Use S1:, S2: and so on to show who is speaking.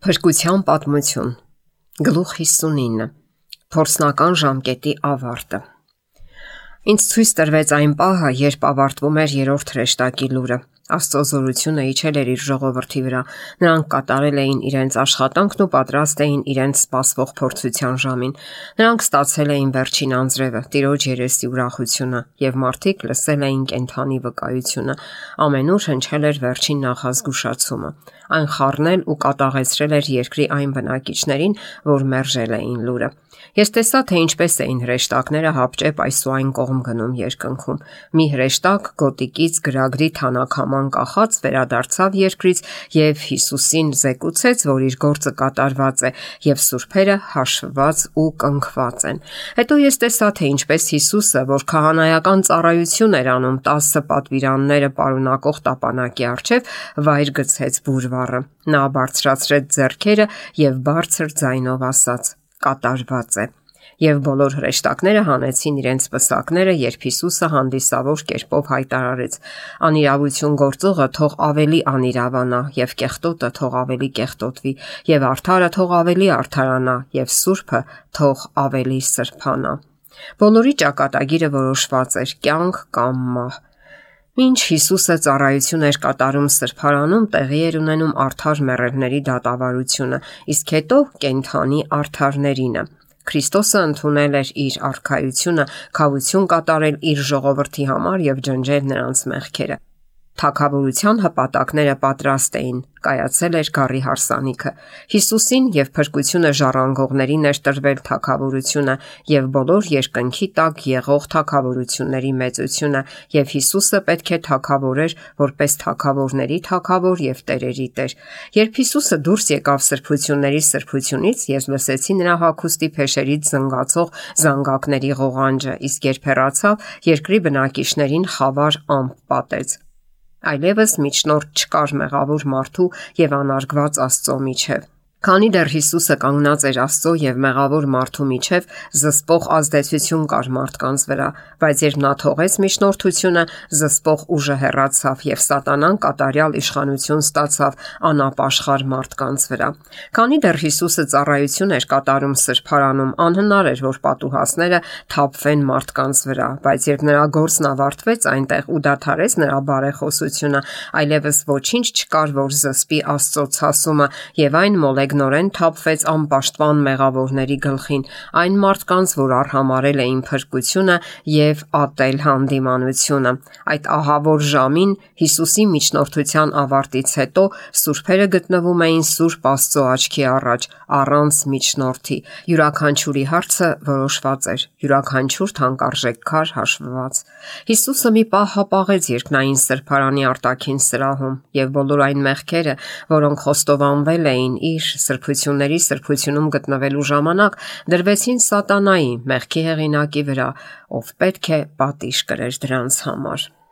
S1: Փրկության պատմություն, գլուխ 59, փորձնական ժամկետի ավարտը։ Ինձ ցույց տրվեց այն պահը, երբ ավարտվում էր երրորդ հրեշտակի լուրը։ Աստծո զորությունը իջել էր իր ժողովրդի վրա։ Նրանք կատարել էին իրենց աշխատանքն ու պատրաստ էին իրենց սպասվող փորձության ժամին։ Նրանք ստացել էին վերջին անձրևը, Տիրոջ երեսի ուրախությունը, եւ մարդիկ լսել էին կենդանի վկայությունը։ Ամենուր հնչել էր վերջին նախազգուշացումը։ Այն խառնել ու կատաղեցրել էր երկրի այն բնակիչներին, որ մերժել էին լուրը։ Ես տեսա, թե ինչպես էին հրեշտակները հապճեպ այս ու այն կողմ գնում երկնքում։ Մի հրեշտակ գոտիկից գրագրի թանաքաման կախած վերադարձավ երկրից եւ Հիսուսին զեկուցեց, որ իր գործը կատարված է եւ սուրբերը հաշվված ու կնքված են։ Հետո ես տեսա, թե ինչպես Հիսուսը, որ քահանայական ծառայություն էր անում 10 պատվիրանները պարունակող տապանակի առջև, վայր գցեց բուրվառը։ Նա բարձրացրեց ձեռքերը եւ բարձր ձայնով ասաց. «Կատարված է»։ Եվ բոլոր հրեշտակները հանեցին իրենց պսակները, երբ Հիսուսը հանդիսավոր կերպով հայտարարեց. «Անիրավություն գործողը թող ավելի անիրավանա, եւ կեղտոտը թող ավելի կեղտոտվի, եւ արդարը թող ավելի արդարանա, եւ սուրբը թող ավելի սրբանա»։ Բոլորի ճակատագիրը որոշված էր՝ կյանք կամ մահ։ Մինչ Հիսուսը ծառայություն էր կատարում սրբարանում, տեղի էր ունենում արդար մեռելների դատավարությունը, իսկ հետո կենդանի արդարներինը։ Քրիստոսը ընդունել էր իր արքայությունը, քավություն կատարել իր ժողովրդի համար եւ ջնջել նրանց մեղքերը։ Թագավորության հպատակները պատրաստ էին, կայացել էր գառի հարսանիքը։ Հիսուսին եւ փրկությունը ժառանգողներին էր տրվել թագավորությունը եւ բոլոր երկնքի տակ եղող թագավորությունների մեծությունը, եւ Հիսուսը պետք է թագավորեր որպես թագավորների թագավոր եւ տերերի տեր։ Երբ Հիսուսը դուրս եկավ սրբությունների սրբությունից, ես լսեցի նրա հագուստի փեշերից զնգացող զանգակների ղողանջը, իսկ երբ հեռացավ, երկրի բնակիչներին խավար ամպ պատեց։ Այլևս միջնորդ չկար մեղավոր մարդու եւ անարգված Աստծո միջև։ Քանի դեռ Հիսուսը կանգնած էր Աստծո եւ մեղավոր մարդու միջև, զսպող ազդեցություն կար մարդկանց վրա, բայց երբ նա թողեց միջնորդությունը, զսպող ուժը հեռացավ եւ սատանան կատարյալ իշխանություն ստացավ անապաշխար մարդկանց վրա։ Քանի դեռ Հիսուսը ծառայություն էր կատարում սրբարանում, անհնար էր, որ պատուհասները թափվեն մարդկանց վրա, բայց երբ նրա գործն ավարտվեց այնտեղ ու դադարեց նրա բարեխոսությունը, այլևս ոչինչ չկար, որ զսպի Աստծո ցասումը, եւ այն մոլեգնորեն թափվեց անպաշտպան մեղավորների գլխին, այն մարդկանց, որ արհամարել էին փրկությունը եւ ատել հանդիմանությունը։ Այդ ահավոր ժամին Հիսուսի միջնորդության ավարտից հետո սուրբերը գտնվում էին Սուրբ Աստծո աչքի առաջ, առանց միջնորդի։ Յուրաքանչյուրի հարցը որոշված էր, յուրաքանչյուր թանկարժեք քար հաշվված։ Հիսուսը մի պահ հապաղեց երկնային սրբարանի արտաքին սրահում, եւ բոլոր այն մեղքերը, որոնք խոստովանվել էին իր սրբությունների սրբությունում գտնվելու ժամանակ, դրվեցին սատանայի, մեղքի հեղինակի վրա, ով պետք է պատիժ կրեր դրանց համար։